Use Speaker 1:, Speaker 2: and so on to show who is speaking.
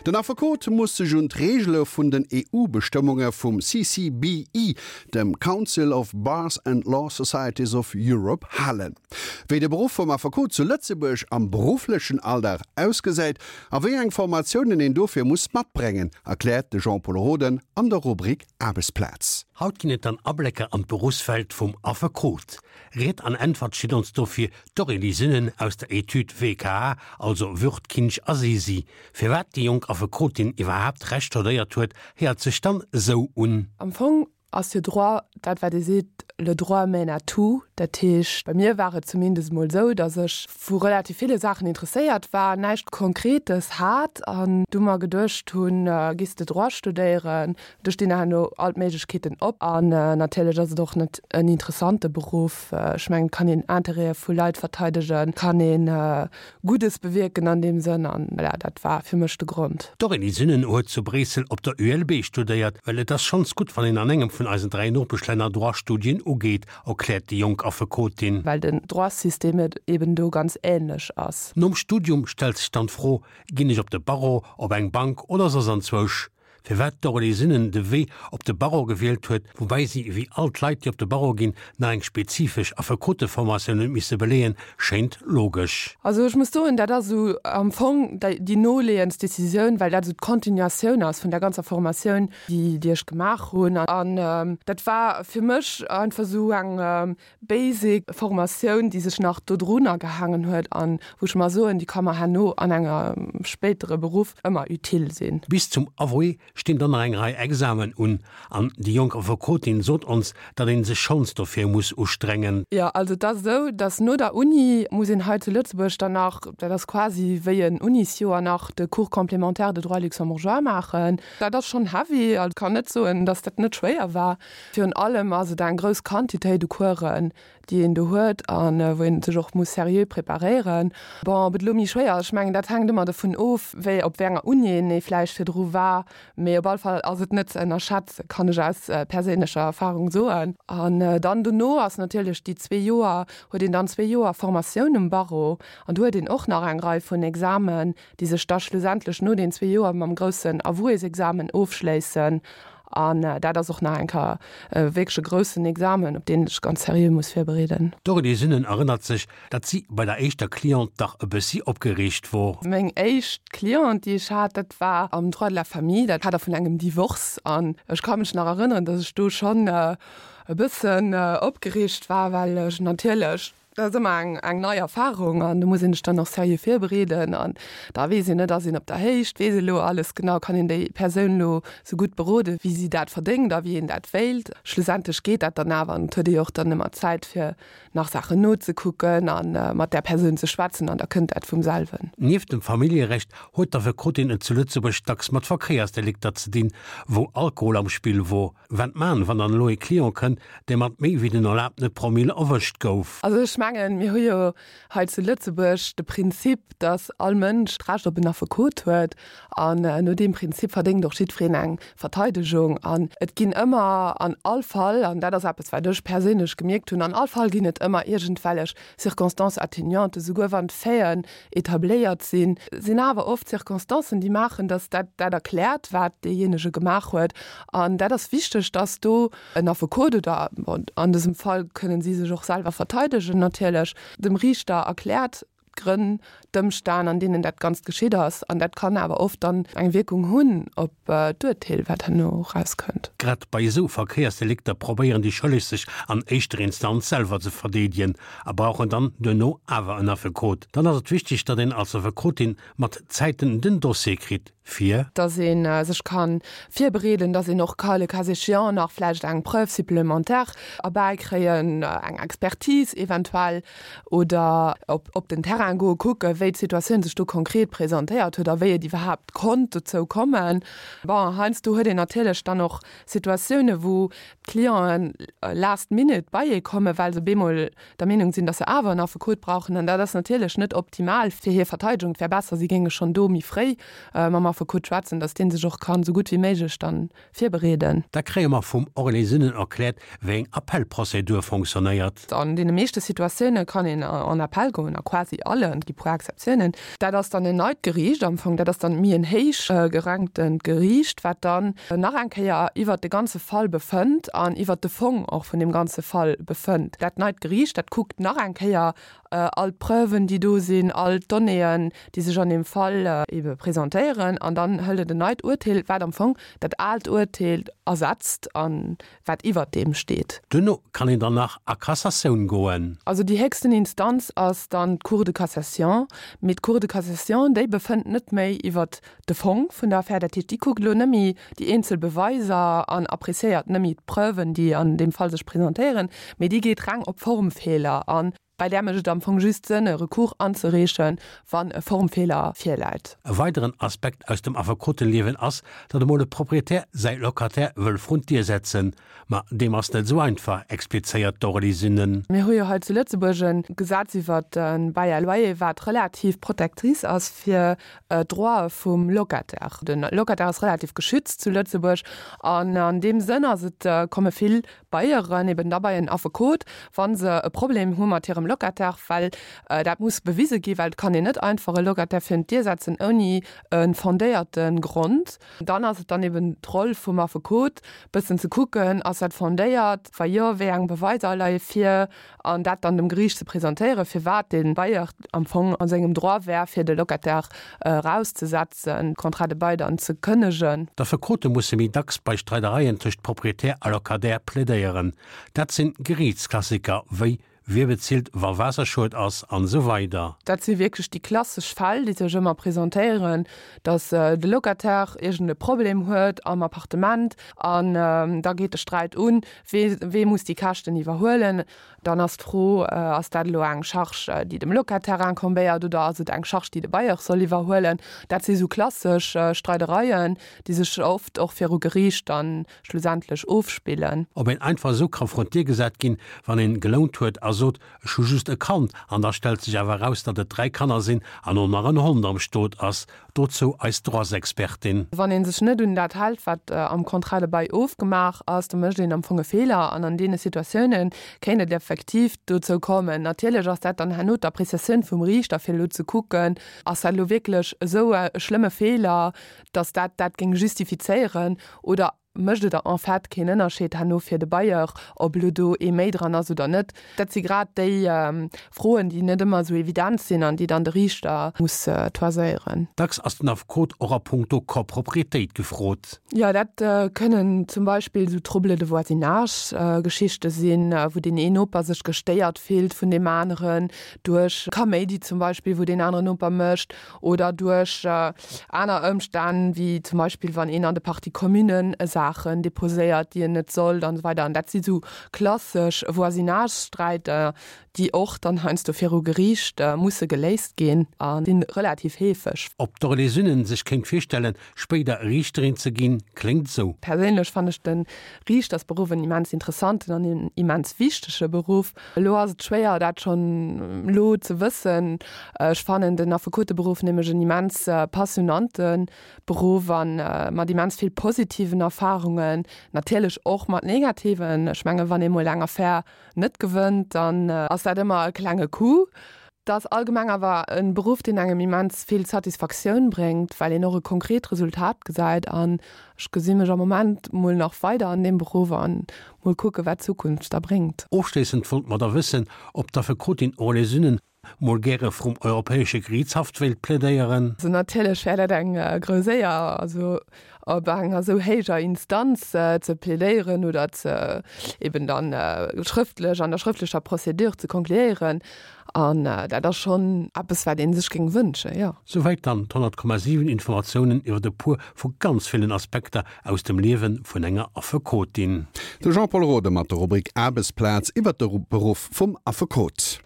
Speaker 1: Den Affekot muss sech un d'Reegele vun den EU-Bestëmmunge vum CCBE, dem Council of Bars and Law Societies of Europe, halen. Wéi de Beruff vum Affekot zu Lëtzebuerg am berufflechen Alldag ausgesäit a wéi eng Formatiounen een dofir muss matbrengen, erkläert de Jean-Pol Roden an der Rubrik Aarbechtsplaz.
Speaker 2: Haut ginn et dann Ablécker an d'Beruffswelt vum Affekot. Ried an Äntwert steet ons dofir d'Aurélie Sünnen aus der Etüd WKA, also Würth, Kinsch a Sisi. Firwat déi jonk Affekotin iwwerhaapt Recht studéiert huet, héiert sech dann esou un.
Speaker 3: Am Fong ass jo Droit dat, wat ee seet, le droit mène à tout. Dat heescht, bei mir war et zumindest emol esou, datt ech vu relativ ville Saachen interesséiert war, näischt Konkretes hat an du mer geduecht hunn, gees de Droit studéieren, Do stinn herno all d'Méiglechkeeten op. An natierlech ass et och net en interessante Beruff. Ech mengen, et kann een Interêtë vu Leit verteidegen, kann ee Guddes bewierken an deem Sënn. An voilà, dat war fir mech de Grond.
Speaker 2: D'Aurélie Sünnen huet zu Bréissel op der ULB studéiert. Well et ass schonns gutt, wann een an engem vun eisen 3 Nopeschlänner Droit-Studien ugeet, erkläert déi jonk Affekotin.
Speaker 3: Well den Droit-System eben do ganz änlech ass.
Speaker 2: Nom Studium stellt sech dann d'Fro, Ginn ech op de Barreau, op eng Bank oder soss anzwousch? Firwat d'Aurélie Sünnen de Wee op de Barreau gewielt huet, woubäi si, wéi all d'Leit, déi op de Barreau ginn, nach eng spezifesch Affekoteformatioun huet misse beleeën, schéint logesch.
Speaker 3: Also ech muss soen, dat ass esou am Fong déi noleeëndst Decisioun, well dat esou d'Continuatioun ass vun der ganzer Formatioun, déi déi ech gemaach hunn. An dat war fir mech einfach esou eng basic Formatioun, déi sech nach dodrunner gehaangen huet an wou ech mer soen, déi ka mer herno an engem spéitere Beruff ëmmer utile sinn.
Speaker 2: Bis zum Avoué stinn dann nach eng Rei Examen un an déi jonk Affekotin sot ons, datt een sech schonns dofir muss ustrengen.
Speaker 3: Jo, also et ass esou, datt no der Uni muss een hei zu Lëtzebuerg dann nach, dat ass quasi wéi en Unisjoer, nach de Cours complémentaire de droit luxembourgeois maachen. Dat ass schonn heavy, also kann net soen, datt dat net schwéier war. Virun allem ass et eng grouss Quantitéit u Coursen, déi een do huet a wou een sech och muss seriö preparéieren. Bon, ob et elo méi schwéier ass, ech mengen, dat hänkt ëmmer dovun of, wéi, op wéi enger Uni een ee vläicht virdru war. Mee op alle Fall ass et net ze ënnerschätzen, kann ech aus perséinlecher Erfarung soen. An dann dono ass natierlech déi zwee Joer, huet een dann zwee Joer Formatioun um Barreau an do huet een och nach eng Rei vun Examen, déi sech da schlussendlech no den zwee Joer mam groussen Avouésexamen ofschléissen. An dat ass och nach eng Kéier wierklech e groussen Examen, op deen ee sech ganz seriö muss virbereeden.
Speaker 2: D'Aurélie Sünnen erënnert sech, datt si bei der éischter Cliente dach e bëssi opgereegt wor.
Speaker 3: Meng éischt Cliente, déi ech hat, dat war am Droit de la famille, dat Kader vun engem Divorce. An ech ka mech nach erënneren, datt ech do schonn e bëssen opgereegt war, well ech natierlech, Dat ass ëmmer eng eng nei Erfahrung an do muss een sech dann och seriö virbereeden an da weess een net, ass een op der Héicht, weess ee lo alles genau, kann een déi Persoun lo sou gutt berode wéi si dat verdéngt a wéi een dat wéilt. Schlussendlech geet dat dann awer an et huet ee jo och dann ëmmer Zäit fir nach Saachen nozekucken a mat där Persoun ze schwätzen an da kënnt dat vum selwen.
Speaker 2: Nieft dem Familljerecht huet d'Affekotin et zu Lëtzebuerg dacks mat Verkéiersdelikter ze dinn, wou Alkohol am Spill wor. Wat man, wann dann elo ee Client kënnt, dee mat méi wéi den erlaabtene Promille erwëscht gouf?
Speaker 3: Also ech mengen, mir hu jo hei zu Lëtzebuerg de Prinzip, datt all Mënsch d'Recht op en Affekot huet. An no deem Prinzip verdéngt och jiddwereen eng Verteidegung. An et ginn ëmmer an all Fall, an dat ass eppes, wat ech perséinlech gemierkt hunn, an all Fall ginn et ëmmer iergendwellech Circonstances atténuantes, esouguer wann d'Faiten etabléiert sinn, sinn awer oft Circonstancen, déi maachen, dass dat dat erkläert, wat deejéinege gemaach huet. An dat ass wichteg, dass do en Affekot oder, bon, an dësem Fall kënnen si sech och selwer verteidegen natierlech, dem Riichter erkläert d'Grënn, d'Ëmstänn, an deenen dat Ganzt geschitt ass. An dat kann awer oft dann eng Wierkung hunn op d'Urteel, wat herno erauskënnt.
Speaker 2: Grad bei esou Verkéiersdelikter probéieren déi Schëlleg sech an éischter Instanz selwer ze verdeedegen a brauchen dann duerno awer en Affekot. Dann ass et wichteg, datt een als Affekotin mat Zäiten den Dossier kritt, fir.
Speaker 3: Datt ee sech ka virbereeden, datt een och ka le cas échéant nach vläicht eng Preuve supplémentaire erbäikréien, eng Expertise eventuell, oder op den Terrain goe kucken, wéi d'Situatioun sech do konkret presentéiert huet a wéi et iwwerhaapt konnt dozou kommen. Bon, heiansdo huet een natierlech dann och Situatiounen, wou d'Clienten last minute bei ee kommen, well se bemol der Meenung sinn, dass se awer en Affekot brauchen. An dat ass natierlech net optimal fir hir Verteidegung. Et wär besser, si géinge schonn do méi fréi mam Affekot schwätzen, dass dee sech och kann esou gutt wéi méiglech dann virbereeden.
Speaker 2: Da kréie mer vum Aurélie Sünnen erkläert, wéi eng Appellprozedur fonctionnéiert.
Speaker 3: An deene meeschte Situatioune kann een en Appell goen, a quasi alle. allen, et gi puer Exceptiounen. Dat ass dann en neit Geriicht am Fong, dat ass dann méi en héich geranktend Geriicht, wat dann nach eng Kéier iwwert de ganze Fall befënnt an iwwert de Fong och vun deem ganze Fall befënnt. Dat neit Geriicht, dat kuckt nach eng Kéier all d'Preuven, déi do sinn, all d'Donnéeën, déi sech an deem Fall ebe presentéieren an dann hëlt et en neit Urteel, wat am Fong dat aalt Urteel ersetzt a wat iwwert deem steet.
Speaker 2: Duerno kann een dann nach a Cassatioun goen.
Speaker 3: Also déi héchsten Instanz ass dann d'Cour de cassation. Mee d'Cour de cassation, déi befënnt net méi iwwert de Fong vun der Affär. Dat heescht, déi kuckt elo net méi déi eenzel Beweiser an appréciéiert net méi d'Preuven, déi an deem Fall sech presentéieren, mee déi geet reng op Formfeeler an. Bei där mécht et am Fong just Sënn, e Recours anzereechen, wann e Formfeeler virläit.
Speaker 2: E weideren Aspekt aus dem Affekoteliewen ass, datt emol e Proprietär säi Locataire wëll vrun d'Dier setzen. Ma deem ass net esou einfach, explizéiert d'Aurélie Sünnen.
Speaker 3: Mir hu jo hei zu Lëtzebuerg e Gesetz iwwert de Bail à loyer, wat relativ protectrice ass fir d'Droite vum Locataire. De Locataire ass relativ geschützt zu Lëtzebuerg an an deem Sënn ass et, komme vill Bailleuren eben da bei en Affekot, wa se e Problem hu mat hirem Locataire, well dat muss bewise gi, well et kann een net einfach e Locataire virun d'Dier setzen ouni e fondéierte Grond. Dann ass et dann eben d'Roll vum Affekot, bëssen ze kucken, ass dat fondéiert, wa jo, wéi eng Beweiser leie vir, an dat dann dem Geriicht ze presentéieren, firwat dee Bailleur am Fong a sengem Droit wär, fir de Locataire erauszesetzen, Contrat de bail dann ze kënnegen.
Speaker 2: D'Affekote musse méi dacks bei Streidereien tëscht Proprietär a Locataire plädéieren. Dat sinn Geriichtsklassiker wéi Wie bezilt, wa Waasserschued ass an esou weider.
Speaker 3: Dat si wierklech déi klassesch Fäll, déi sech ëmmer presentéieren, datt de Locataire iergend e Problem huet am Appartement an da geet de Sträit un, Wee, wee muss déi Käschten iwwerhuelen? Dann ass d'Fro, Ass dat elo eng Charge, déi dem Locataire incombéiert oder ass et eng Charge, déi de Bailleur soll iwwerhuelen? Dat si sou klassesch Streidereien, déi sech oft och viru Geriicht dann schlussendlech ofspillen.
Speaker 2: Ob een einfach esou ka vrun d'Dier gesat ginn, wann een gelount huet a sot, ech hu just e Kand, an da stellt sech awer eraus, datt et 3 Kanner sinn an och nach en Hond am Stot ass, Dozou eis Droitsexpertin.
Speaker 3: Wann ee sech net un dat hält, wat am Contrat de bail ofgemaach ass, da mécht een am Fong e Feeler. An an deene Situatioune kéint et effektiv dozou kommen. Natierlech ass dat dann herno d'Appreciatioun vum Riichter, fir elo ze kucken, Ass dat elo wierklech esou e schlëmme Feeler, datt dat dat géing justifizéieren oder Mécht et en fait keen Ënnerscheed herno fir de Bailleur, ob elo do ee méi dran ass oder net? Dat si grad déi Froen, déi net ëmmer esou evident sinn an déi dann de Riichter muss toiséieren.
Speaker 2: Dacks ass den Affekot och a puncto Coproprietéit gefrot.
Speaker 3: Jo, dat kënnen zum Beispill esou Troubles de voisinage-Geschichte sinn, wou deen een Noper sech gestéiert fillt vun deem aneren duerch Kaméidi zum Beispill, wou deen aneren Noper mécht. oder duerch aner Ëmstänn, wéi zum Beispill wann een an de Parties communen Saachen deposéiert, déi en net sollt an esou weider. An dat si sou klassesch Voisinage-Sträiter, déi och dann heiansdo viru Geriicht musse geléist ginn a si relativ heefeg.
Speaker 2: Ob d'Aurélie Sünnen sech kéint virstellen, Spéider Riichterin ze ginn, kléngt esou.
Speaker 3: Perséinlech fannen ech de Riichtersberuff en immens interessanten an en immens wichtege Beruff. Elo ass et schwéier dat schonn elo ze wëssen. Ech fannen den Affekoteberuff nämlech en immens passionante Beruff a mat immens vill positiven Erfarungen, natierlech och mat negativen. Ech menge wann ee mol eng Affär net gewënnt, dann ass dat ëmmer e klenge Coup. Et ass allgemeng awer e Beruff, deen engem immens vill Satisfaktioun bréngt, well een och e konkret Resultat gesäit. An ech gesi mech am Moment mol nach weider an deem Beruff an mol kucke wat d'Zukunft da bréngt.
Speaker 2: Ofschléissend wollt mer da wëssen, ob d'Affekotin Aurélie Sünnen mol gäre vrum Europäesche Geriichtshaff wéilt plädéieren.
Speaker 3: Also natierlech wär dat eng grouss Éier. Also op enger esou héijer Instanz ze plädéieren oder ze eben dann schrëftlech an der schrëftlecher Procédure ze konkluéieren. An dat ass schonn eppes, wat ee sech géing wënschen, jo.
Speaker 2: Souwäit dann d'100,7 Informatiounen iwwer e puer vu ganz villen Aspekter aus dem Liewe vun enger Affekotin.
Speaker 1: De Jean-Pol Rode mat der Rubrik Aarbechtsplaz iwwer de Beruff vum Affekot.